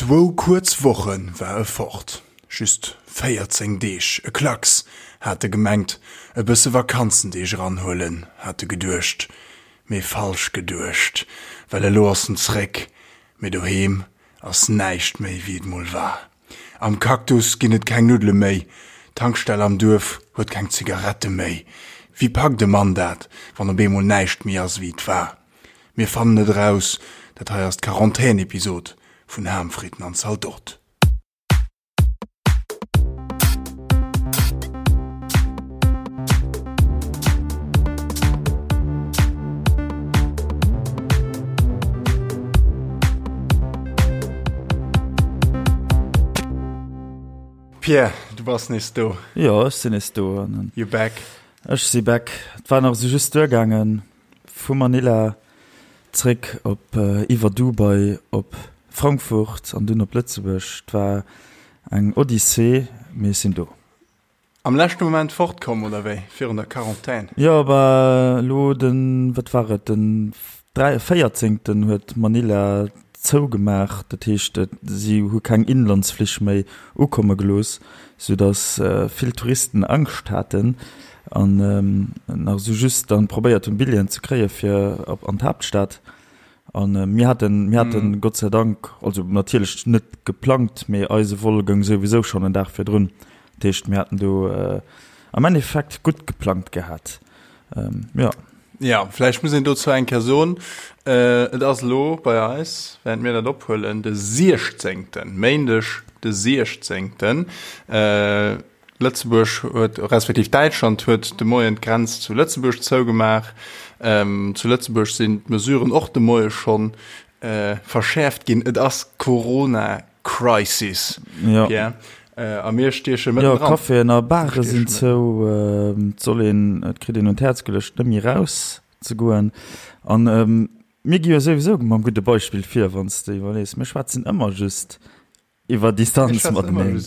Zwou kuerz Woche war e fort, just 14 Deeg, e Klacks, hat e gemengt, e bësse Vakanzendeeg eranhuelen, hat e geduecht, mee falsch geduecht, well elo ass en zréck, mee doheem ass näischt méi wéi et mol war. Am Cactus ginn et keng Nuddele méi, d'Tankstell am Duerf huet keng Zigarette méi. Wéi packt e Mann dat, wann op eemol näischt méi ass wéi et war? Mir fannen et eraus, dat hei ass d'Quarantän-Episod vun Ham, Fritten an Zaldot. Pierre, du bass nees do. Jo, ech sinn nees do. You're back. Ech si back. Et war nach esou just duergaangen. Vu Manila zréck op iwwer Dubai op Frankfurt an dunn op Lëtzebuerg. Et war eng Odyssee, mee ech sinn do. Am leschte Moment fortkomm, oder wéi? Virun der Quarantän? Jo, bah elo den, wat war et, den véierzéngten huet Manila zougemaach. Dat heescht, si hu keng Inlandsflich méi ukomme gelooss, soudass vill Touristen Angscht haten an nach esou just dann probéiert hunn Billjeeën ze kréie fir op an d'Haaptstad. An mir haten, mir haten Gott sei Dank, also natierlech net geplangt, mee eise Vol goung souwisou schonn en Dag virdrun. Dat heescht mir haten do am Endeffekt gutt geplangt gehat. Jo. Ja, vläicht muss een dozou eng Kéier soen, et ass elo bei eis, während mir dat ophuelen, de 16., Méindeg de 16. Lëtzebuerg huet, respektiv Däitschland huet de Moien d'Grenz zu Lëtzebuerg zougemaach. Zu Lëtzebuerg sinn d'Mesuren och de Moie schonn verschäerft ginn. Et ass Corona Crisis, Pierre, a mir stieche mëtten dran. Jo, Caféen a Bare sinn zou. Et soll een, et kritt een un d'Häerz geluecht, net méi eraus ze goen. An mir gi jo souwisou mam gudde Beispill vir, wann s de iwwerlees. Mir schwätzen ëmmer just Iwwer Distanz mateneen.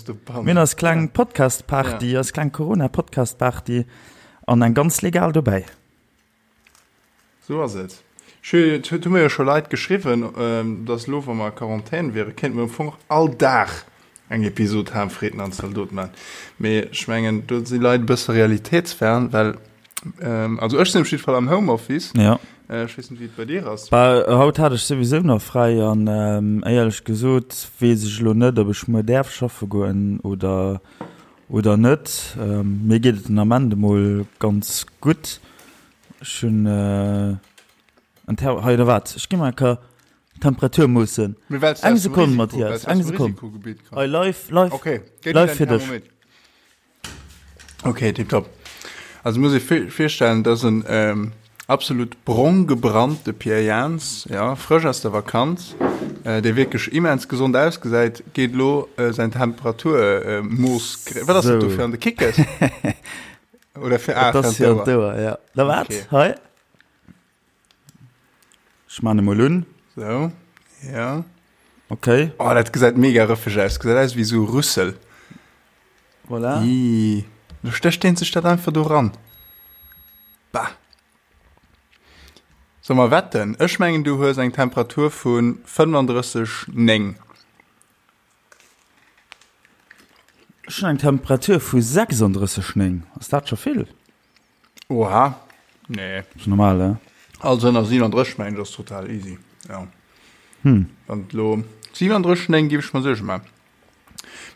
Mir hunn eis kleng Podcast-Party, eis kleng Corona-Podcast-Party an eng ganz legal dobäi. Sou ass et. Et hu mir jo scho Leit geschriwwen, dass elo, wa mer a Quarantän wieren, kéinte mer am Fong och all Dag eng Episod Ham, Fritten an Zaldot maachen. Mee ech mengen, do si Leit e bësse realitéitsfern, well Also ech sinn op jidde Fall am Homeoffice. Ja. Ech weess net, wéi et bei dir ass. Bah, haut hat ech souwisou nach fräi an éierlech gesot weess ech elo net, ob ech muer däerf schaffe goen oder, oder net. Mir geet et den Ament emol ganz gutt. Ech hunn en Ther-, hei oder wat, ech gi mol eng Kéier d'Temperatur moossen. Mee well s du Eng aus dem Sekonn, Risiko, Mathias, well s du eng aus dem Sekonn. Risikogebitt komm. Hei, live, live, Okay, gëtt dir live däin fir dech. Thermometer. Okay, tipptopp. Also muss ee virstellen, dass en ähm, absolut brong gebrannte Pierre Jans, ja, frësch aus der Vakanz, äh, dee wierklech immens gesond ausgesäit, geet lo äh, säin Temperaturmooss. Äh, Wat ass dat do fir an de Kickes? Oder fir ah, Dat ass fir an d'Ouer, ja. Da wat? Okay. Hei. Ech man emol un. So, ja. Okay. Oh, dat gesäit mega rëffeg aus. Gesäit aus wéi sou Rüssel. Voilà. Ii. Lo stécht deen sech dat einfach do ran. Bah. Soll mer wetten? Ech mengen, du hues eng Temperatur vu 35,9. Ech hunn eng Temperatur vu 36,9. Ass dat scho vill? Oha, nee. Ass normal, he? Also ënner 37 mengen ech ass total easy, ja. Hm. Wann et lo 37, 9 géif ech mer Suerge man.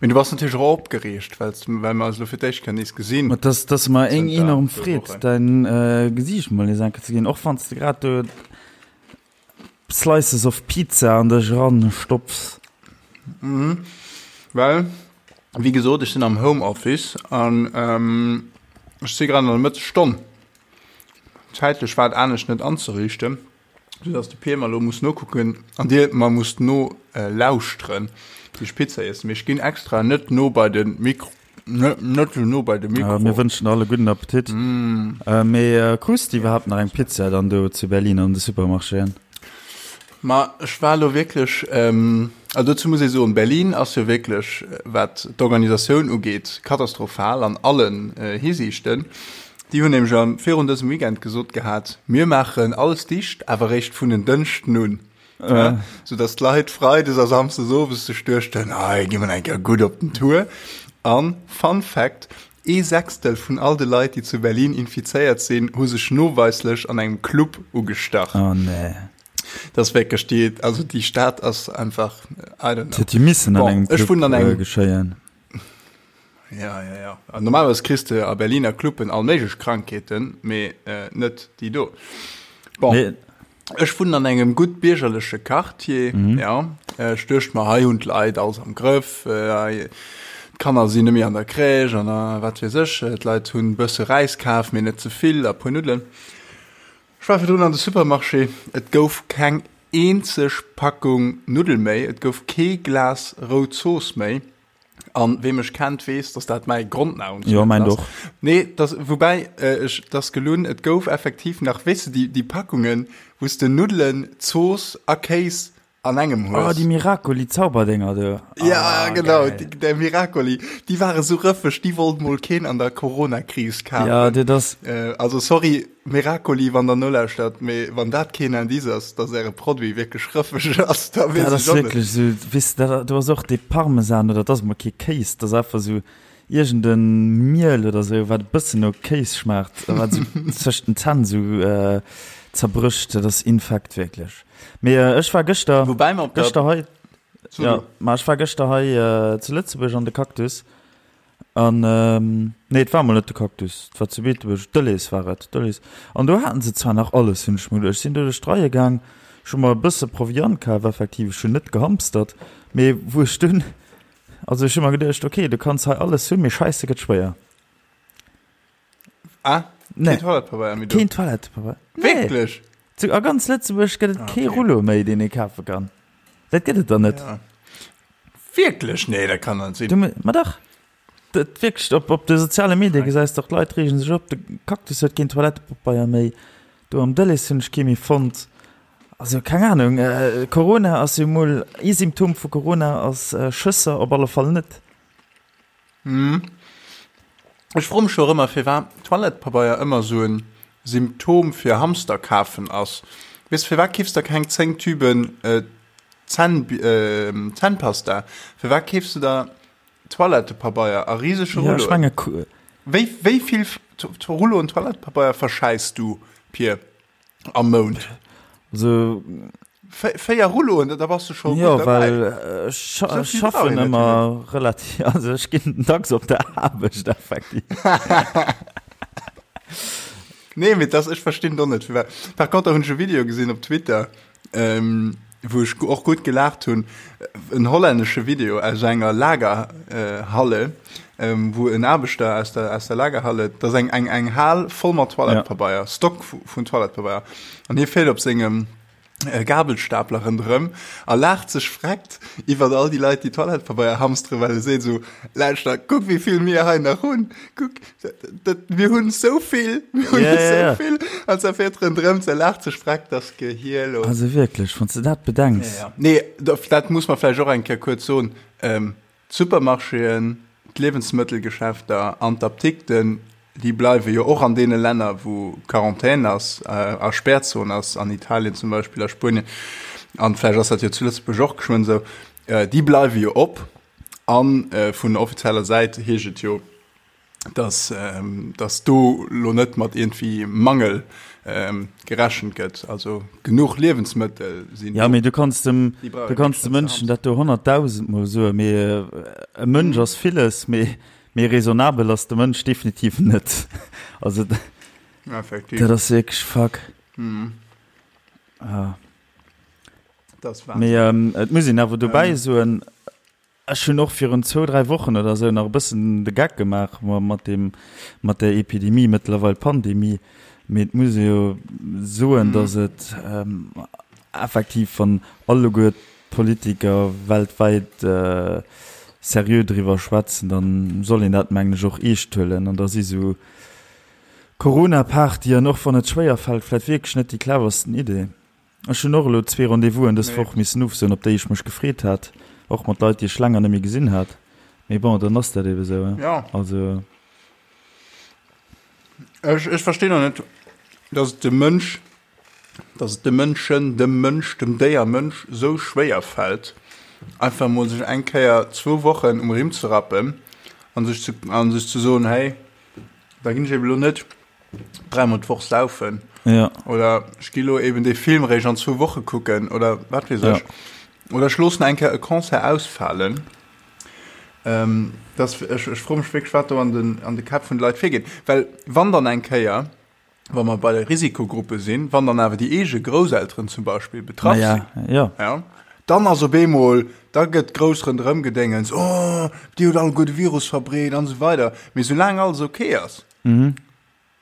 Mee du bass natierlech och opgereegt, well well mer eis elo fir d'éischt Kéier nees gesinn. Ma dass dass mer eng Zënter enorm zwou Freed, Wochen. däin äh, Gesiicht mol nees eng Kéier ze gesinn, och wann s de grad do Slices of Pizza an dech eran stopfs. Mhm. Well, wéi gesot, ech sinn am Homeoffice an ähm, ech si grad an der Mëttesstonn. Zäitlech war et anescht net anzeriichten, soudass de Pier mer elo muss nokucken an dir mer musst no äh, lauschteren, wéi ech Pizza iessen. Mee ech ginn extra net no bei de Mikro. Net sou no bei de Mikro. Mir wënschen alle gudden Appetit. Mee krus de iwwerhaapt nach eng Pizza dann do zu Berlin an de Supermarchéen? Ma ech war elo wierklech, also dozou muss ee soen, Berlin ass jo wierklech, wat d'Organisatioun ugeet, katastrophal an allen Hisiichten. Déi hunn nämlech virun dësem Weekend gesot gehat, mir maachen alles dicht, awer eréischt vun en Dënschden un. Ja, sou dass d'Leit freides a samsdes owes sech duechten, hei gi mer eng Kéier gutt op den Tour. An, Fun Fact, Ee Sechstel vun all de Leit, déi zu Berlin infizéiert sinn, hu sech noweislech an engem Club ugestach. Oh nee. Dat ass wierklech déi, also déi Stad ass einfach, I don't know. Dat huet jo missen an Bon, engem ech Club wunnen an engem. geschéien. Ja, ja, ja. An normalerweis kriss de a Berliner Cluben all méiglech Krankheeten, mee net déi do. Bon. Nee. Ech wunnen an engem gutt biergerleche Quartier, ja. Ech duecht mer, hei hunn d'Leit alles am Grëff, hei d'Kanner sinn net méi an der Crèche an a wat weess ech. D'Leit hunn e bësse Räis kaf, mee net ze vill a puer Nuddelen. Ech war virdrun an de Supermarché, et gouf keng eenzeg Packung Nuddel méi, et gouf kee Glas rout Zooss méi. An wee mech kennt, weess, dass dat mäi Grondnahrungsmittel ass. Jo, mäint och. Nee, dass, woubäi, ech, dass gelunn, et gouf effektiv nach, weess de, déi, déi Packungen, wou s de Nuddelen, Zooss a Kéis an engem Oh, hues. déi Miracoli-Zauberdénger do. Ja, Ah, genau, geil. déi, der Miracoli, déi ware sou rëffeg, déi wollt mol keen an der Corona-Kris Ja, kafen. dat ass. Also, sorry, Miracoli, wann der nolauschtert, mee wann dat keen Indice ass, dass äre Produit wierklech rëffeg ass, da weess Dat ass ech och net. wierklech esou, weess de, dat do ass och dee Parmesan oder dat ass emol kee Kéis, dat ass einfach esou iergend e Miel oder esou, wat e bëssen no Kéis schmaacht a wat esou zwëscht den Zänn esou zerbrécht. Dat ass infekt wierklech. Mee ech war gëschter, Woubäi mer op der. gëschter hei, So jo, du. ma ech war gëschter hei zu Lëtzebuerg an de Cactus An, nee, et war mol net de Cactus, et war zu Beetebuerg, Delhaize war et, Delhaize. An do haten se zwar nach alles, hunn ech mer geduecht. Ech sinn do duerch d'Reie gaang, ech hu mer e bësse Proviant kaf, effektiv, ech hunn net gehamstert, mee wou ech dunn, also ech hu mer geduecht, okay, du kanns hei alles hunn, mee Scheisse gëtt schwéier. Ah, Nee. keen Toilettepabeier méi do? Keen Toilettepabeier. Nee. Wierklech? Zu, a ganz Lëtzebuerg gëtt et Ah, kee okay. Rullo méi, deen ee kafe kann. Dat gëtt et dann net. Ja. Wierklech? Nee, dat kann net sinn. Du, ma dach. Dat wierklech, op, op de soziale Medie gesäis de och, d'Leit reegen sech op, de Cactus huet keen Toilettepabeier méi, do am Delhaize hunn ech kee méi fonnt. Also keng Ahnung, Corona ass jo mol, ee Symptom vu Corona ass Schësser op alle Fall net. Ech froe mech och ëmmer, firwat Toilettepabeier ëmmer esou en Symptom fir Hamster kafen ass. Weess, firwat keefs der keng 10 Tüben Zänn, Zännpasta? Firwat keefs du der Toilettepabeier a risege Ja, ech Rulloen? menge. Wéi, wéi vill Rulloen Toilettepabeier verschäiss du, Pir? Am Mount. Also 4 Rulloen, da bass du scho Jo, gutt derbäi. well ech Sou vill brauch schaffen een net ëmmer relativ, also ech ginn dacks op der Aarbecht effektiv. Nee, mee das, ech verstinn do net firwat. Par contre hunn ech e Video gesinn op Twitter, ähm, wou ech och gutt gelaacht hunn, en hollännesche Video aus enger Lagerhalle, ähm, wou en Aarbechter aus der, aus der Lagerhalle, dat ass eng, eng, eng Hal voll mat Toilettepabeier, Stock vun Toilettepabeier, an hie fiert op sengem äh, Gabelstapler ronderëm a laacht sech vreckt iwwer all déi Leit, déi Toilettepabeier hamsteren, well e seet esou, Lauschter, kuck wéi vill mir hei nach hunn, kuck, dat, mir hunn esou vill, mir hunn Ja, ja, esou ja. vill, an se fiert ronderëm, se laacht sech vreckt, das Gehier los. Also wierklech, wann s de dat bedenks. Ja, ja. Nee, dat muss man vläicht och eng Kéier kuerz soen, ähm, D'Supermarchéen, d'Liewensmëttelgeschäfter an d'Apdikten, déi bleiwe jo och an deene Länner, wou Quarantän ass a Spärzon ass, an Italien zum Beispill, a Spuenien, an vläicht ass dat jo zu Lëtzebuerg och geschwënn esou, déi bleiwe jo op. A vun offizieller Säit heescht et jo, dass, dass do lo net mat iergendwéi Mangel gerechent gëtt. Also genuch Liewensmëttel sinn Ja, do. mee du kanns dem, Déi brauch du een kanns net de ze Mënschen dat do honnertdausendmol soen, mee e Mënsch ass villes, mee, mee raisonnabel ass de Mënsch definitiv net. Also Effektiv. dat ass wierklech fuck. Ah. Dat ass Mee Wahnsinn. et muss een awer dobäi soen, Ech hunn och virun zwou, dräi Wochen oder esou nach e bëssen de Geck gemaach mat deem, mat där Epidemie, mëttlerweil Pandemie. Mee et muss ee jo soen, datt et effektiv, wann alleguer d'Politiker weltwäit seriö driwwer schwätzen, da soll een dat, mengen ech, och eescht huelen. An da si sou Corona-Partyen, och wann et schwéier fält, vläicht wierklech net déi cleversten Idee. Ech hunn och elo zwee Rendez-vousen dës Woch missen ofsoen, op déi ech mech gefreet hat, och mat Leit, déi ech länger net méi gesinn hat. Mee bon, dann ass dat ebe sou, hein. Jo. Also. Ech, ech verstinn och net, dass et de Mënsch. Dass et de Mënschen, dem Mënsch, dem Déier Mënsch esou schwéier fält, einfach emol sech eng Kéier zwou Wochen um Rimm ze rappen an sech ze, an sech ze soen, hey, da ginn ech eben elo net dräimol d'Woch saufen. Ja. Oder ech gi lo eben dee Film réischt an zwou Woche kucken oder wat weess ech. Ja. Oder ech loossen eng Kéier e Concert ausfalen. Ähm, das, ech, ech froe mech wierklech, wat do an den, an de Käpp vun de Leit virgeet. Well wann dann eng Kéier, wa mer bei de Risikogruppe sinn, wann dann awer déi eege Grousselteren zum Beispill betraff sinn, ja. Ja, dann ass op eemol, da gëtt grouss ronderëm gedéngens, oh, déi huet alleguer de Virus verbreet an esou weider. Mee soulaang alles ok ass, mhm.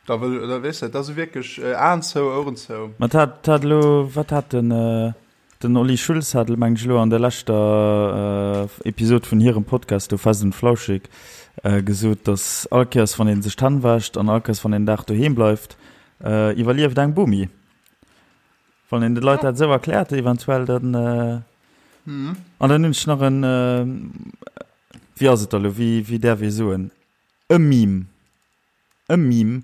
da wëll, da weess de, da si wierklech Aen zou, Oueren zou. Mä et hat, hat elo, wat hat den, Den Olli Schulz hat, mengen ech, elo an der leschter Episod vun hirem Podcast do Fest und Flauschig gesot, datt all Kéiers wann ee sech d'Hänn wäscht an all Kéiers wann een en Dag doheem bleift, iwwerlieft eng Bomi. Wann een de Leit dat esou erkläert eventuell, dann. An dann hunn ech nach en, wéi ass et da elo, wéi wéi däerf ee soen, e Meme. E Meme,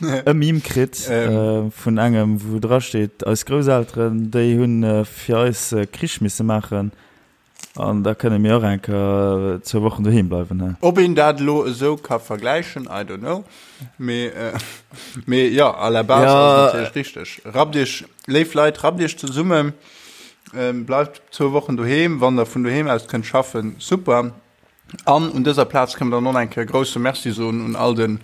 e Meme kritt vun engem, wou dra steet, eis Grousselteren, déi hunn fir eis Krich misse maachen an da kënne mir och eng Kéier zwou Wochen doheem bleiwen, he. Ob een dat elo esou ka vergläichen, I don't know. Mee, mee jo, à la base ass et natierlech richteg. Rappt iech, léif Leit, rappt iech zesummen, bleift zwou Wochen doheem, wann der vun doheem aus kënnt schaffen, super. An un dëser Plaz kënnen mer dann och nach eng Kéier e grouse Merci soen un all de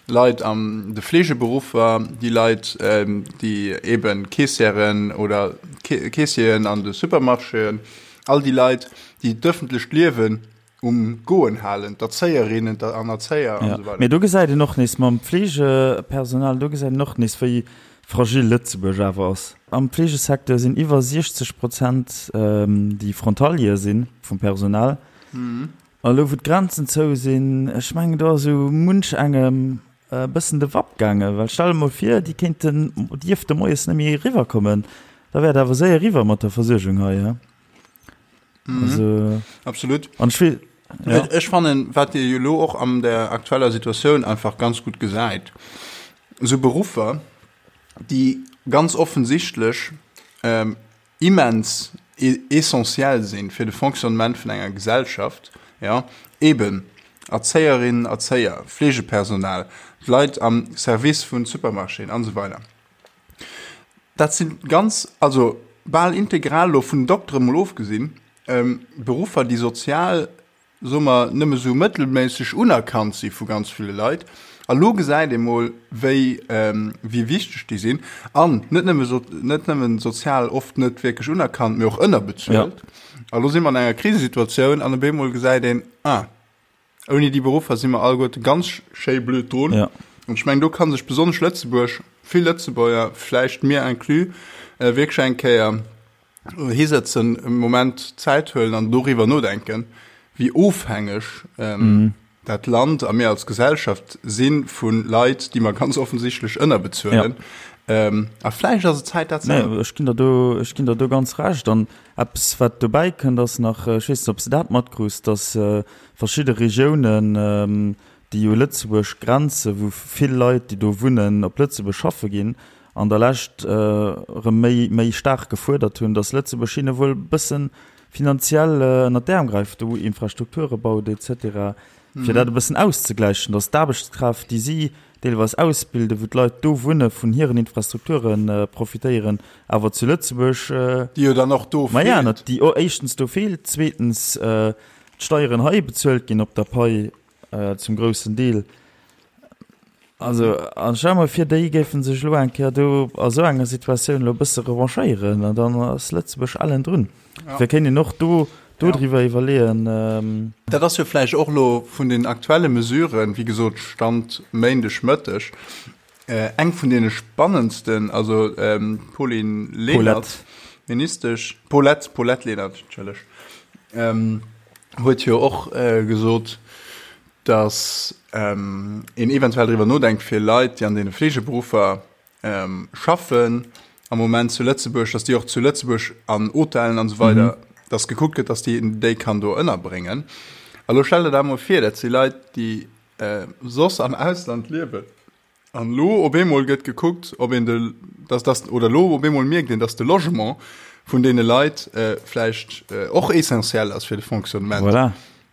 Leit an de Fleegeberuffer, déi Leit, déi eebe Keessièren oder Keessieren an de Supermarchéen, all déi Leit, déi d'ëffentlecht Liewen um Goen halen, d'Erzéierinnen an Erzéier an esou weider. Mee do gesäit een och nees mam Fleegepersonal, do gesäit een och nees, wéi fragil Lëtzebuerg awer ass. Am Fleegesecteur sinn iwwer 60 Prozent, déi Frontalier sinn vum Personal. A lo wou d'Grenzen zou sinn, ech mengen do ass esou munch engem e bëssen de Wapp gaangen, well stell der mol vir, déi kéinten, dierfte moies net méi eriwwer kommen, da wär et awer séier eriwwer mat der Versuergung hei, he? Also. Absolut. An ech will, ja. Ech fannen, wat ee jo elo och an der aktueller Situatioun einfach ganz gutt gesäit, esou Beruffer, déi ganz offensichtlech immens essentiell sinn fir de Fonctionnement vun enger Gesellschaft, jo, eben Erzéierinnen, Erzéier, Fleegepersonal, d'Leit am Service vun Supermarchéen an esou weider. Dat si ganz, also bal integral, elo vun den Doktere mol ofgesinn, Beruffer, déi sozial soe mer, nëmme sou mëttelméisseg unerkannt si vu ganz ville Leit. A lo gesäit ee mol, wéi, wéi wichteg déi sinn. An net nëmme so, net nëmmen sozial oft net wierklech unerkannt, mee och ënnerbezuelt. A lo si mer an enger Krisesituatioun an op eemol gesäit een, ah, ouni déi Beruffer si mer alleguerte ganz schéi blöd drun. An ech mengen, do ka sech besonnesch Lëtzebuerg, vill Lëtzebuerger, vläicht mir inclus, wierklech eng Kéier hisëtzen, e Moment Zäit huelen an doriwwer nodenken, wéi ofhängeg dat Land a mir als Gesellschaft si vu Leit, déi mer ganz offensichtlech ënnerbezuelen. Ja. A vläicht ass et Zäit, dat ze änneren. Ech ginn der do, ech ginn der do ganz Recht. An eppes, wat dobäi kënnt, ass nach, ech weess net, ob s de dat matkruus, datt verschidde Regiounen, déi u Lëtzebuerg grenzen, wou vill Leit, déi do wunnen, op Lëtzebuerg schaffe ginn, an der Lescht erëm méi, méi staark gefuerdert hunn, datt Lëtzebuerg hinne wuel e bësse finanziell ënnert d'Äerm gräift, do Infrastrukture baut et cetera, fir dat e bëssen auszegläichen, datt d'Aarbechtskraaft, déi si deelweis ausbilden, wou d'Leit do wunne vun hiren Infrastrukture profitéieren, awer zu Lëtzebuerg, Déi jo dann och do feelt. Maja, déi éischtens do feelt, zweetens d'Steieren hei bezuelt ginn op der Pai Zum groussen Deel. Also, an stell mol vir, déi géife sech elo eng Kéier do a sou enger Situatioun elo e bësse revanchéieren, an dann ass Lëtzebuerg ellen drun. Dofir kéint een och do dodriwwer iwwerleeën. Dat ass jo vläicht och elo vun den aktuelle Mesuren, wéi gesot Stand Méindeg Mëtteg, eng vun deene spannendsten. Also d'Pauline Lenert, Ministesch, Paulette, Paulette Lenert, entschëlleg, huet jo och gesot, datt een eventuell driwwer nodenkt, fir Leit, déi an deene Fleegeberuffer schaffen am Moment zu Lëtzebuerg, datt déi och zu Lëtzebuerg an Hotellen an esou weider, datt gekuckt gëtt, datt déi een déi kann do ënnerbréngen. A lo stell der dat emol vir, dat si Leit, déi soss am Ausland liewen. An elo op eemol gëtt gekuckt, ob een de, dass, dass, oder elo op eemol mierkt een, dass de Logement vun deene Leit vläicht och essentiell ass fir de Fonctionnement. Voilà.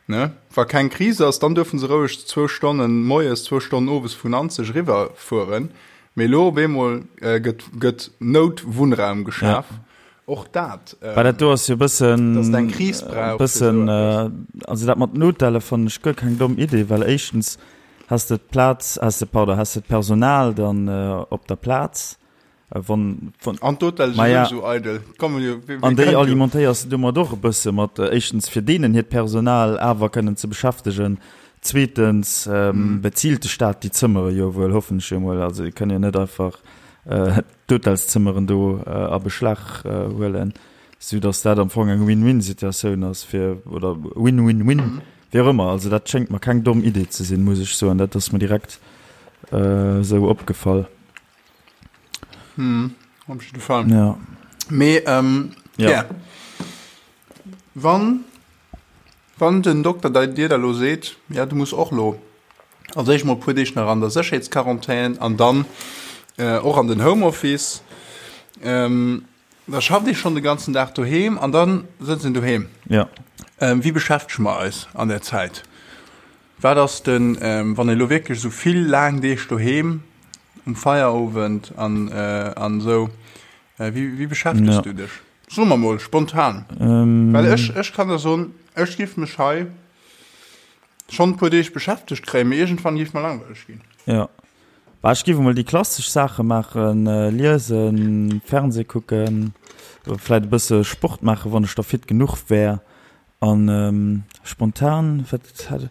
Ne? Wa keng Kris ass, dann duerfe se roueg zwou Stonnen moies, zwou Stonnen owes vun Nanzeg eriwwer fueren. Mee elo op eemol gëtt, gëtt Noutwunnraum geschaf. Ja. Och dat. Well dat do ass jo e bëssen. Dass et eng Kris brauch. Bëssen, also dat mat den Hotelle fannen ech guer keng domm Idee, well éischtens has de d'Plaz, has de, pardon, has de d'Personal dann op der Plaz, wann, wann. An d'Hotelle si souwisou eidel. Kommen jo, wee An déi alimentéiers de domat och e bësse mat, éischtens fir deenen hiert Personal awer kënnen ze beschäftegen, zweetens bezilt de Staat déi Zëmmere jo wuel, hoffen ech jo emol, also déi kënnen jo net einfach d'Hotelszëmmeren do a Beschlag huelen, sou datt dat am Fong eng Win-win-Situatioun ass fir, oder Win-win-win, wéi och ëmmer. Also dat schéngt mer keng domm Idee ze sinn, muss ech soen. Dat ass mer direkt esou opgefall. Hm, op jidde Fall. Ja. Mee, ähm, ja. Yeah. Wann, wann den Dokter dei dir da lo seet, ja, du muss och lo als éischt mol e puer Deeg nach an der Sécherheetsquarantän an dann äh, och an den Homeoffice, ähm, da schafft ee schonn de ganzen Dag doheem an dann sëtzt een doheem. Ja. Ähm, wéi beschäftege mer eis an där Zäit? Wat ass den, ähm, wann ee lo wierklech esou vill laang Deeg doheem um Feierowend an, äh, an esou, äh, wéi, wéi beschäftegs Ja. du dech? So mer mol spontan. Ähm. Well ech, ech kann der soen, ech giff mech hei schonn e puer Deeg beschäftegt kréien, mee iergendwann giff mer langweileg ginn. Ja. Bah, ech giff emol déi klassesch Saache maachen, liesen, Fernseh kucken, vläit e bësse Sport maachen, wann ech da fit genuch wär. An spontan, wat hat,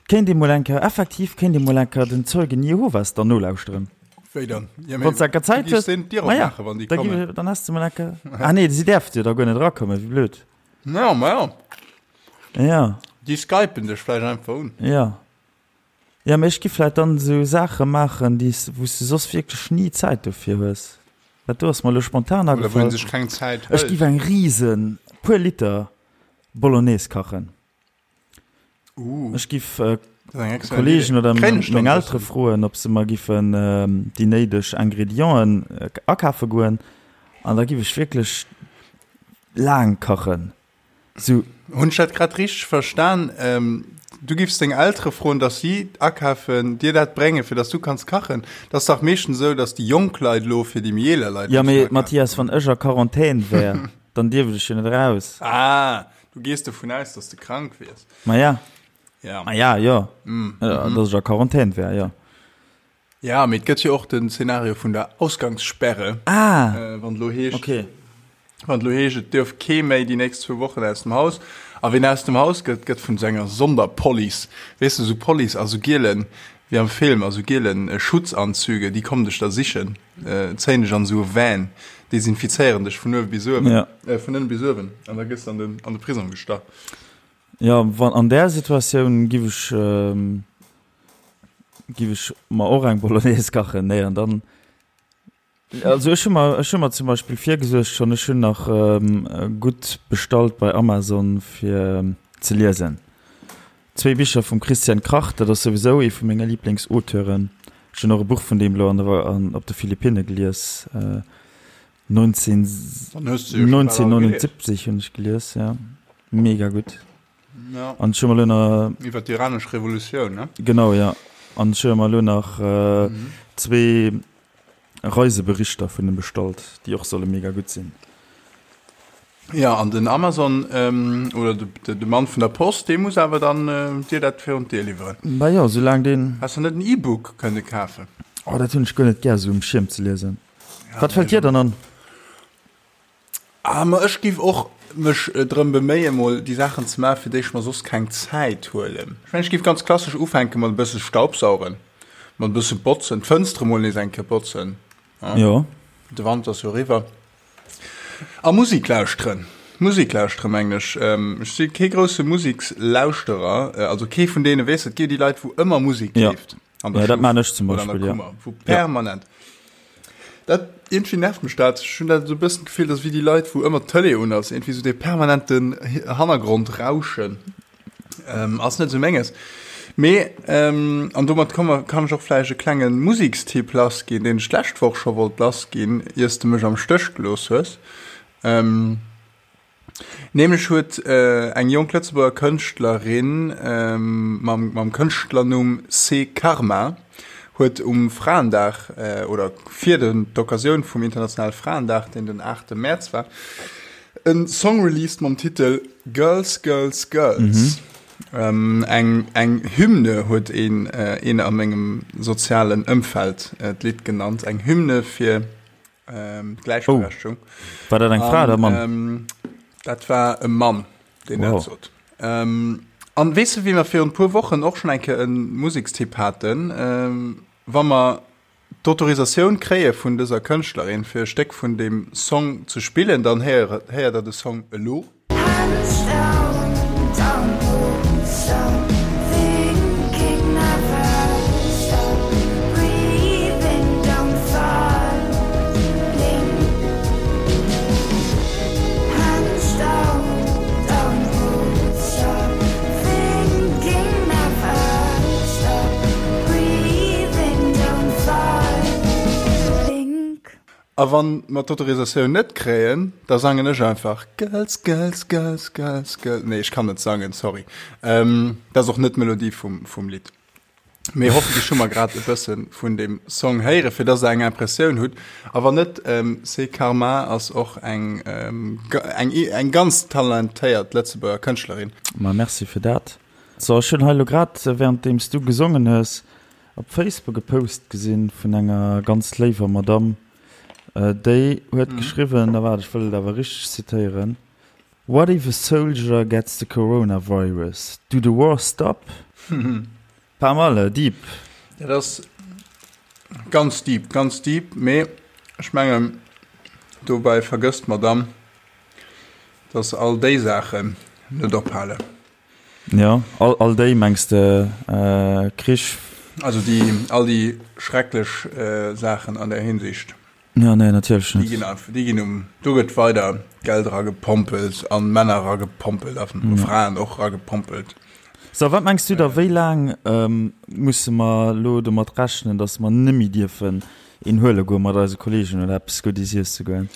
kéint ee mol eng Kéier, effektiv kéint ee mol eng Kéier den Zeugen Jehovas dann nolauschteren. Wéi dann? Ja, mee Wann s de eng Kéier du Zäit giffs hues, deenen d'Dier ma ja, opmaachen, wann déi da kommen. giff, dann häss de mol eng Kéier, ah nee, si däerfte jo da guer net erakommen, wéi blöd. Ja, ma ja. Ja. Déi skypen dech vläicht einfach un. Ja. Ja, mee ech gi vläit dann esou Saache maachen, déi s, wou s de soss wierklech ni Zäit dofir hues. Dat do ass mer elo spontan Oder wou agefall. een sech keng Zäit Ech hëlt. giff eng riesen, puer Liter Bolognese kachen. Uh, Ech giff dat ass eng excellent Kollegen Idee. oder Kréien ech meng dann Eltere bëssen? froen, ob se mer giffen déi néideg Ingredienten akafe goen an da giff ech wierklech laang kachen. Sou. Hunn ech dat grad richteg verstan? Du giffs deng Eltere froen, dass si akafen, dir dat bréngen, fir dass du kanns kachen? Dat ass dach meeschtens esou, dass déi jonk Leit elo fir déi méi eeler Leit Jo, mussen mee akafen. Mathias, wann ech a Quarantän wär, dann dierft ech jo net eraus. Ah, du gees dovun aus, dass de krank wiers. Ma ja. Ja. Ma ja, jo. Dass ech a Quarantän wär, jo. Ja, mee et gëtt jo och den Szenario vun der Ausgangssperre. Ah! Wann et elo heescht, Okay. wann et elo heescht, et duerf kee méi déi nächst zwou Wochen aus dem Haus. A ween aus dem Haus gëtt, gëtt vun esou enger Sonderpolice, weess de, esou Police a sou gielen, wéi am Film, a sou gielen Schutzanzüge, déi kommen dech da sichen, zéien dech an esou e Van, desinfizéieren dech vun uewe bis uewen, Ja. vun ënne bis uewen, an da gëss de an den, an de Prisong gestach. Ja, wann an där Situatioun giff ech, Giff ech mer och eng Bolognese kachen? Nee, an dann, also ech hu mer, ech hu mer zum Beispill virgesuergt schonn, ech hunn nach gutt bestallt bei Amazon fir ze liesen. Zwéi Bicher vum Christian Kracht, dat ass souwisou ee vu menge Liblingsauteuren. Ech hunn och e Buch vun deem elo an der, an op de Philippinne gelies, 19, Dann hues de jo scho bal all gelies. 1979 hunn ech gelies, ja, mega gutt. Ja. An ech hu mer elo nach. Iwwer d'iranesch Revolutioun, ne? Genau, ja. An ech hu mer elo nach zwee Reiseberichter vun em bestallt, déi och solle mega gutt sinn. Ja, an den Amazon oder de Mann vun der Post, dee muss awer dann dir dat virun d'Dier liwweren. Bah jo, soulaang deen. Häss de net en E-Book kënne kafen? Oh, dat hunn ech guer net gär, esou um Schierm ze liesen. Wat fält dir dann an? Ah, ma ech giff och mech drëm beméien, mol déi Saachen ze maachen, fir déi ech mer soss keng Zäit huelen. Ech mengen, ech giff ganz klassesch ufänke mat e bësse Staubsaugen, mat e bësse botzen, d'Fënstere mol nees eng Kéier botzen, Jo. de Wanter ass jo eriwwer. A Musik lauschteren, Musik lauschteren, mengen ech. Ech si kee grousse Musikslauschterer, also kee vun deene, weess de, et gi jo déi Leit, wou ëmmer Musik leeft an der Ja, dat Stuff maan ech zum oder an der Beispill, ja. Kummer, wou permanent. Dat, iergendwéi nervt mech dat. Ech hunn dat esou e bëssen d'Gefill, dass wéi déi Leit, wou ëmmer d'Tëlee un ass, iergendwéi esou dee permanenten Hannergrond-Rauschen, ass net esou menges. Mee, an domat komme kann ech och vläicht e klenge Musekstipp lassginn, deen ech d'lescht Woch scho wollt lassginn, ier s de mech am Stéch gelooss hues. Nämlech huet eng jonk Lëtzebuerger Kënschtlerin mam mam Kënschtlernumm C. Karma huet um Fraendag oder fir den d'Occasioun vum internationale Fraendag, deen den 8 Mäerz war, e Song released mam Titel Girls, Girls, Girls. Eng eng Hymne huet een een a mengem sozialen Ëmfeld d'Lidd genannt, eng Hymne fir D'Gläichberechtigung. Oh. War dat eng Fra oder e Mann? Ähm, dat war e Mann, deen wow. dat sot. Ähm, an weess du, wéi mer virun puer Wochen och schon eng Kéier e Musekstipp haten, ähm, wa mer d'Autorisatioun kréie vun dëser Kënschtlerin, fir e Stéck vun deem Song ze spillen, dann héiert, héiert der de Song elo. A wann mer d'Autorisatioun net kréien, da sangen ech einfach Girls, Girls, Girls, Girls, Girls. Nee, ech kann net sangen, sorry. Ähm, dat ass och net d'Melodie vum, vum Lidd. Mee hoffentlech hu mer grad e bësse vun deem Song héieren, fir dass der eng Impressioun hutt. A wann net, ähm, C'est Karma ass och eng, ähm, eng, eng ganz talentéiert Lëtzebuerger Kënschtlerin. Ma merci fir dat. So, ech hunn hei elo grad, währenddeems du gesongen hues, Op Facebook e Post gesinn vun enger ganz léiwer Madame, déi huet geschriwwen, a waart, ech wëll et awer richteg zitéieren, What if a soldier gets the coronavirus? Do the war stop? Pas mal, deep. Dat ass ganz deep, ganz deep, mee ech mengen, dobäi vergësst d'Madame, dass all déi Saachen net ophalen. Jo, all, all déi mengs de Krich? Also déi, all déi schrecklech Saachen an där Hinsicht. Jo, nee, natierlech net. Déi ginn einfach, déi ginn um, do gëtt weider Geld eragepompelt an Männer eragepompelt a Fraen och eragepompelt. So, wat mengs du da, wéi laang musse mer elo domat rechnen, datt mer nëmme dierfen een huele goe mat eise Kolleegen oder eppes Guddes iesse goen?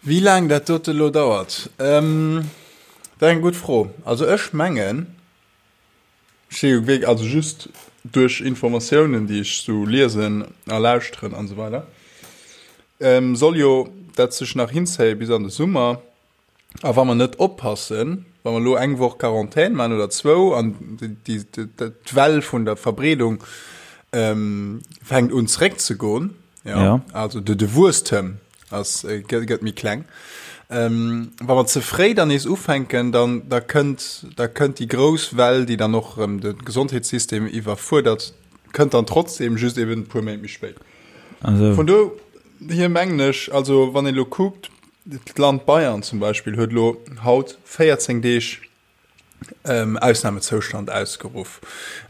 Wéi laang dat dote lo dauert? Dat ass eng gutt Fro. Also ech mengen, ech si jo wierk, also just duerch Informatiounen, déi ech sou liesen a lauschteren an esou weider, soll jo dat sech nach hinzéie bis an de Summer. A wa mer net oppassen, wa mer elo eng Woch Quarantän maachen oder zwou an d'Well vun der Verbreedung fänkt un zeréckzegoen, jo, also de Wuesstem ass gëtt méi kleng. Ähm, wa mer ze fréi dann nees ufänken, dann da kënnt da kënnt déi grouss Well, déi dann och erëm de Gesondheetssystem iwwerfuerdert, kënnt dann trotzdem just eben e puer Méint méi spéit. Also. Vun do hier mengen ech, also wann een elo kuckt, d'Land Bayern zum Beispill huet elo haut 14 Deeg Ausnamezoustand ausgeruff.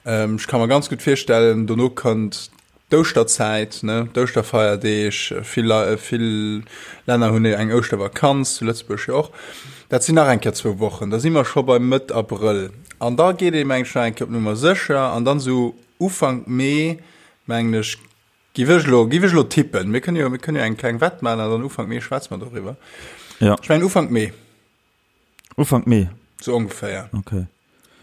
Ech ka mer ganz gutt virstellen, dono kënnt d'Ouschterzäit, ne, d'Ouschterfeierdeeg, vill, vill Länner hunn eng Ouschtervakanz, zu Lëtzebuerg jo och. Dat sinn nach eng Kéier zwou Wochen, da si mer scho bei Mëtt Abrëll. An da geet ee mengen ech nach eng Kéier op Nummer sécher an dann esou Ufank Mee, mengen ech, giff ech elo, giff ech elo tippen, mir kënnen jo, mir kënnen jo eng kleng Wett maachen an dann Ufank Mee schwätze mer doriwwer. Ja. Ech mengen Ufank Mee. Ufank Mee. Sou ongeféier. Okay.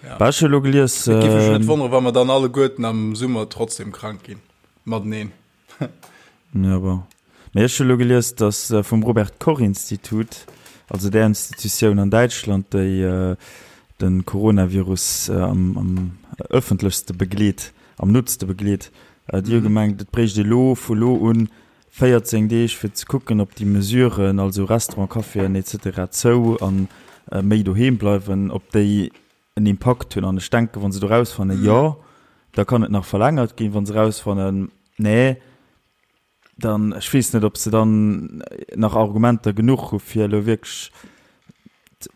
Ja. Bah, ech hu lo gelies. Et géif mech net wonneren, wa mer dann alleguerten am Summer trotzdem krank ginn. Mateneen. Ja, bon. Mee ech hu lo gelies, dass vum Robert Koch Institut, also där Institutioun an Däitschland, déi de Coronavirus am, am ëffentlechste begleet, am nootste begleet, déi hu gemengt, et bréicht ee lo, vu lo un, 14 Deeg fir ze kucken, ob déi Mesuren, also Restaurant, Caféen etc. Zou an méi doheem bleiwen, ob déi en Impakt hunn. An ech denken, wa se do rausfannen, jo, da kann et nach verlängert ginn. Wa se rausfannen, nee, dann, ech weess net, ob se dann nach Argumenter genuch hu fir elo wierklech,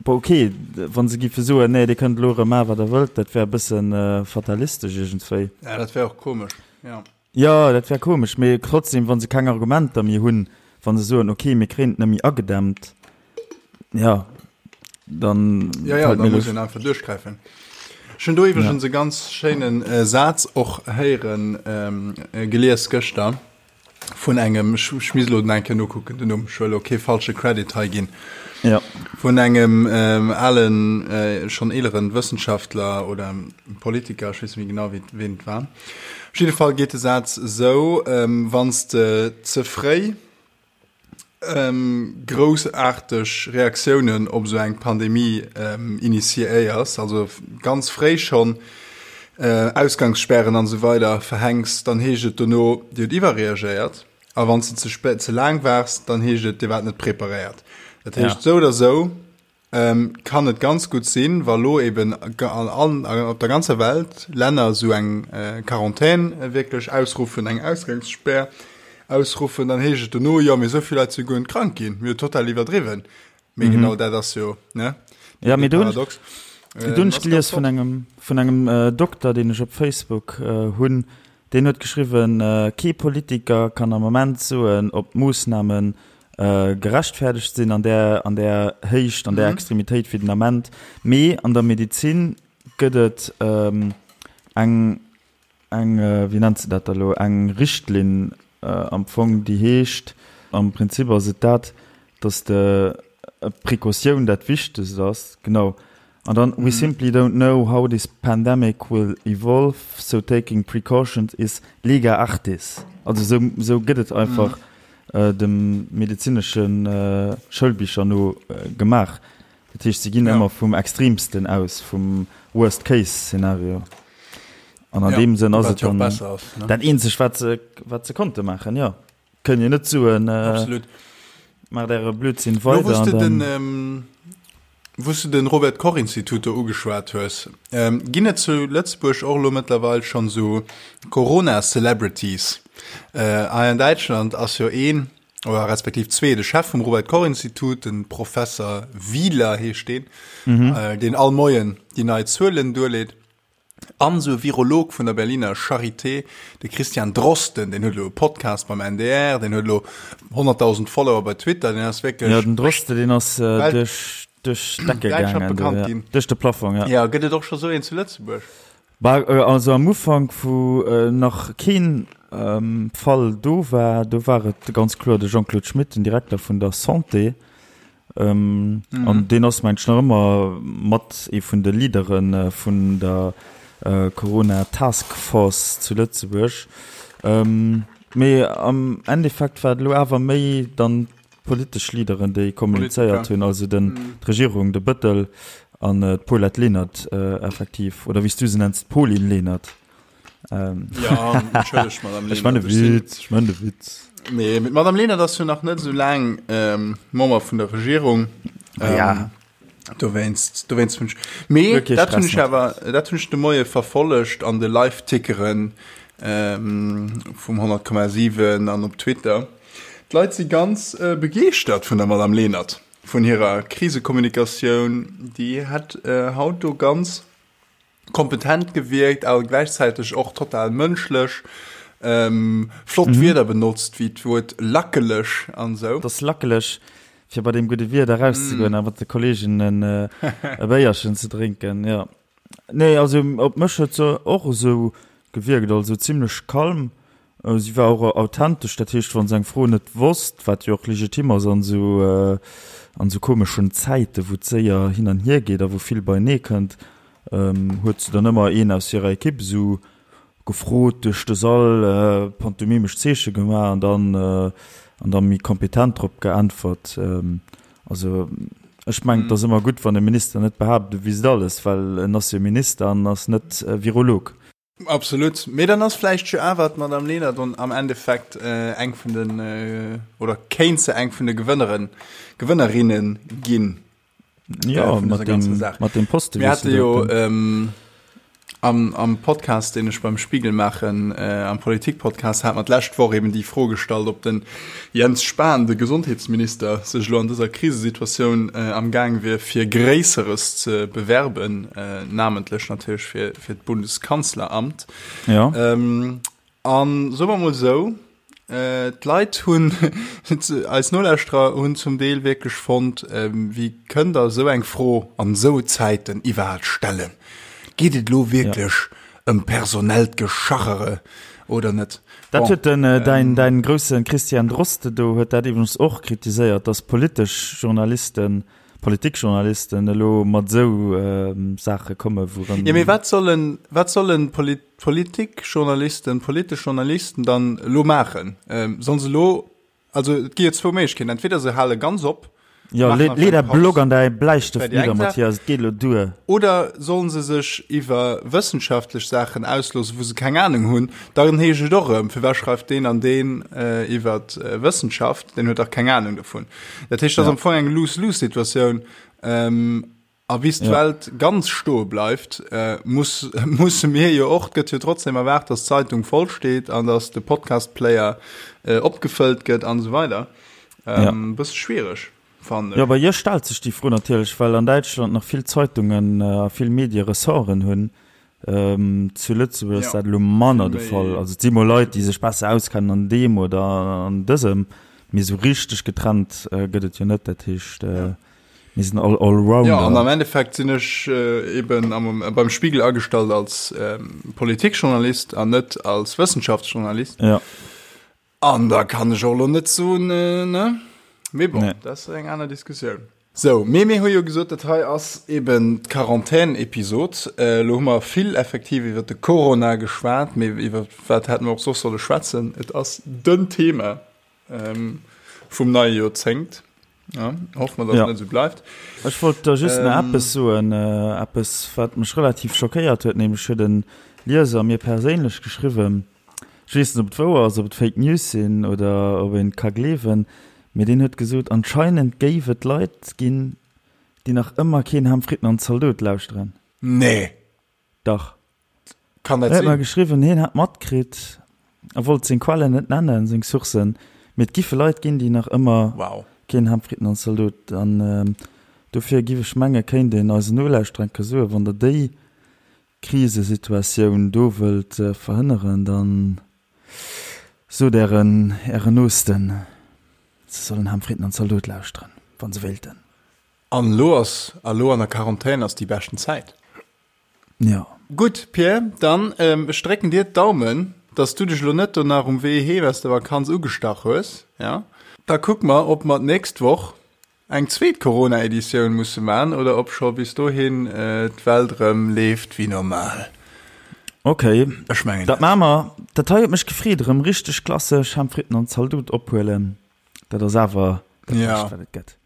bon okay, wa se géife soen, nee, Dir kënnt elo erëm maachen, wat Der wëllt, dat wär e bësse fatalistesch iergendwéi. Ja, dat wär och komesch, jo. Jo, dat wär komesch, mee trotzdem, wa se keng Argumenter méi hunn, wa se soen, okay, mir kréien et net méi agedämmt, ja, dann Ja, ja, da muss een einfach duerchgräifen. Ech hunn do iwwregens e ganz schéinen Saz och héieren, gelies gëschter vun engem, ech ech misst elo eng Kéier nokucken den Numm, ech wëll elo kee falsche Credit hei ginn, Ja. vun engem alen, schonn eeleren Wëssenschaftler oder Politiker, ech weess net méi genau wéi ween et war. Op jidde Fall geet de Saz esou, Wann s de ze fréi groussaarteg Reaktiounen op esou eng Pandemie initiéiers, also ganz fréi schonn Ausgangssperren an esou weider verhänks, dann heescht et dono, Dir hutt iwwerreagéiert. A wann s de ze spéit, ze laang waars, dann heescht et, Dir waart net preparéiert. Dat heescht, esou oder esou kann et ganz gutt sinn, wa lo eben an op der ganzer Welt Länner esou eng Quarantän wierklech ausruffen, eng Ausgangsspär ausruffen, dann heescht et dono, jo mee esou vill Leit si guer net krank ginn, mir hu total iwwerdriwwen. Mee genau dat ass jo, ne, Ja, mee do hunn ech, do hunn ech gelies vun engem, vun engem Dokter, deen ech op Facebook hunn, deen huet geschriwwen, kee Politiker kann am Moment soen, ob d'Moossnamen gerechtfäerdegt sinn an där, an där Héicht, an där Extremitéit wéi den Ament. Mee an der Medezin gëtt et eng, eng, wéi nennt se dat da lo, eng Richtlinn am Fong, déi heescht, am Prinzip ass et dat, datt de Precautioun dat Wichtegst ass, genau, An dann, We simply don't know how this pandemic will evolve, so taking precautions is lega artis. Also esou, esou gëtt et einfach dem medezinesche Schoulbicher no gemaach. Dat heescht, se ginn ëmmer vum Extremsten aus, vum Worst-Case-Szenario. An an deem Sënn ass et dann dat eenzegt, wat se, wat se konnte maachen, jo. Kënnt jo net soen, Absolut. Maacht äre Blödsinn weider. Lo, wou s de den, wou s de den Robert Koch Institut do ugeschwat hues, ginn et zu Lëtzebuerg och elo mëttlerweil schonn esou Corona-Celebrities? Hei an Däitschland ass jo een, oder respektiv zwee, de Chef vum Robert Koch Institut, den Professer Wieler heescht deen, deen all Moien déi nei Zuelen duerleet. An esou e Virolog vun der Berliner Charité, de Christian Drosten, deen huet elo e Podcast beim NDR, deen huet elo 100.000 Follower bei Twitter, deen ass wierklech. Jo, den Drosten, deen ass duerch d'Decke gaangen, bekannt ginn. Duerch de Plafong, ja. Jo, gëtt et och scho sou een zu Lëtzebuerg? Bah, also am Ufank, wou nach keen Fall do war, do war et ganz kloer de Jean-Claude Schmit, den Direkter vun der Santé, An deen ass mengt ech nach ëmmer mat ee vun de Leadere vun der Corona Task Force zu Lëtzebuerg. Mee am Endeffekt war et elo awer méi dann d'politesch Leaderen, déi kommunizéiert hunn, also den d'Regierung, de Bëttel an d'Paulette Lenert effektiv, oder wéi s du se nenns, d'Pauline Lenert. Ähm. Ja, entschëllegt, Madame Lenert. Ech man de Witz, ech man de Witz. Nee, mit Madame Lenert ass jo nach net so laang ähm, Member vun der Regierung. Ähm, ja. Dowéinst, dowéinst hunn ech. Mee okay, dat hunn ech awer, dat hunn ech de Moie verfollegt an de Live-Tickeren ähm, vum 100,7 an op Twitter. D'Leit si ganz äh, begeeschtert vun der Madame Lenert, vun hirer Krisekommunikatioun. Déi hat äh, haut do ganz kompetent gewierkt, awer gläichzäiteg och total mënschlech. Ähm, flott mhm. Wierder benotzt, wéi d'Wuert lackeleg an sou. Das lackeleg, fir bei dem gudde Wieder rauszegoen mm. a mat de Kolleegen en äh, e Béierchen ze drénken. Ja. Nee, also op mech huet se och esou gewierkt, also zimmlech kalm. Si war och authentesch, dat heescht, wa se eng Fro net wosst, wat jo och legitim ass an esou an esou komeschen Zäiten, wou et séier hin an hier geet a wou vill beienee kënnt, huet se dann ëmmer een aus hirer Ekipp esou gefrot, duerch de Sall pantomimesch Zeeche gemaach an dann an da méi kompetent drop geäntwert. Also ech mengen, et ass ëmmer gutt, wann e Minister net behaapt, e wüsst alles, well en ass jo Minister an ass net Virolog. Absolut. Mee dann ass vläicht jo awer d'Madame Lenert am Endeffekt eng vun den, oder kéint se eng vun de Gewënneren, Gewënnerinne ginn. Ja, vun dëser ganzer Saach. Mat deem Posten. Mir hate jo am, am Podcast, deen ech beim Spiegel maachen, am Politikpodcast, hat mer d'lescht Woch eben déi Fro gestallt, ob den Jens Spahn, de Gesondheetsminister, sech elo an dëser Krisesituatioun am Gaang wier, fir Gréisseres ze bewerben, namentlech natierlech fir, fir d'Bundeskanzleramt. Ja. Ähm, an soe mer mol esou, äh, d'Leit hunn, eis Nolauschterer hunn zum Deel wierklech fonnt, ähm, wéi kënnt Der esou eng Fro an esou Zäiten iwwerhaapt stellen? Geet et elo wierklech ëm personellt Geschachere oder net? Dat huet den, däin, däin grousse Christian Droste do huet dat iwwregens och kritiséiert, datt politesch Journalisten, Politikjournalisten elo mat esou Saache komme wourëm. Jo, mee wat sollen, wat sollen Politikjournalisten, politesch Journalisten dann elo maachen? Sollen se elo Also et gi jo zwou Méiglechkeeten, entweder se hale ganz op. Jo, lee däi Blog an däi Bläistëft nidder, Mathias, et geet elo duer. Oder sollen se sech iwwer wëssenschaftlech Saachen ausloossen, wou se keng Anung hunn, dann heescht et och erëm, firwat schreift deen an deen iwwer Wëssenschaft, deen huet dach keng Anung dovun. Dat heescht, dat ass am Fong eng Lose-Lose-Situatioun. A bis d'Welt ganz stoe bleift, muss, musse mir jo och, et gëtt jo trotzdem erwaart, dass d'Zeitung voll steet an dass de Podcast-Player opgefëllt gëtt an esou weider. E bësse schwiereg, fannen ech. Jo, bei iech stellt sech déi Fro natierlech, well an Däitschland nach vill Zeitungen a vill Medie Ressorten hunn. Zu Lëtzebuerg ass dat elo manner de Fall. Also et si mol Leit, déi sech besser auskennen an deem oder an dësem, mee esou richteg getrennt gëtt et jo net. Dat heescht. Mir sinn all Allrounder. Jo, an am Endeffekt sinn ech eben am, beim Spiegel agestallt als Politikjournalist an net als Wëssenschaftsjournalist. Ja. An da kann ech och elo net soen, ne? Mee bon, nee. dat ass eng aner Diskussioun. Sou, mee mir hu jo gesot, dat hei ass eben d'Quarantän-Episod. Elo hu mer vill effektiv iwwer de Corona geschwat, mee iwwer wat hätte mer och soss solle schwätzen? Et ass den Thema. Vum neie Joerzéngt. Ja, hoffe mer, dass et net esou bleift. Ech wollt der just nach eppes soen, eppes, wat mech relativ schockéiert huet, nämlech huet e Lieser mir perséinlech geschriwwen, ech weess net, ob et wouer ass, ob et Fake News sinn oder ob een et ka gleewen, mee deen huet gesot, anscheinend géif et Leit ginn, déi nach ëmmer keen Ham, Fritten an Zaldot lauschteren. Nee! Dach. Kann dat sinn? En huet mer geschriwwen, hien hätt matkritt, a wollt seng Quellen net nennen, seng Sourcen, mee et giffe Leit ginn, déi nach ëmmer wow. keen Ham, Fritten an Zaldot. An dofir giff ech menge kéint een eisen Nolauschterer eng Kéier soen, wann der déi Krisesituatioun do wëllt verhënneren, da sot ären ären Noosten, se sollen Ham, Fritten an Zaldot lauschteren, wa se wéilten. An elo ass, a lo an der Quarantän ass déi beschten Zäit. Jo. Gutt, Pierre, dann ech drécken dir d'Daumen, dass du dech elo net do nach um Wee heem aus der Vakanz ugestach hues, ja? Da kucke mer, ob mer d'nächst Woch eng zweet Corona-Editioun musse man oder ob scho bis dohin d'Welt erëm leeft wéi normal. Ok, Ech mengen dat net. maache mer. Dat hei huet mech gefreet, erëm richteg klassesch Ham, Fritten an Zaldot ophuelen. Dat ass awer dat Ja. Bescht, wat et gëtt.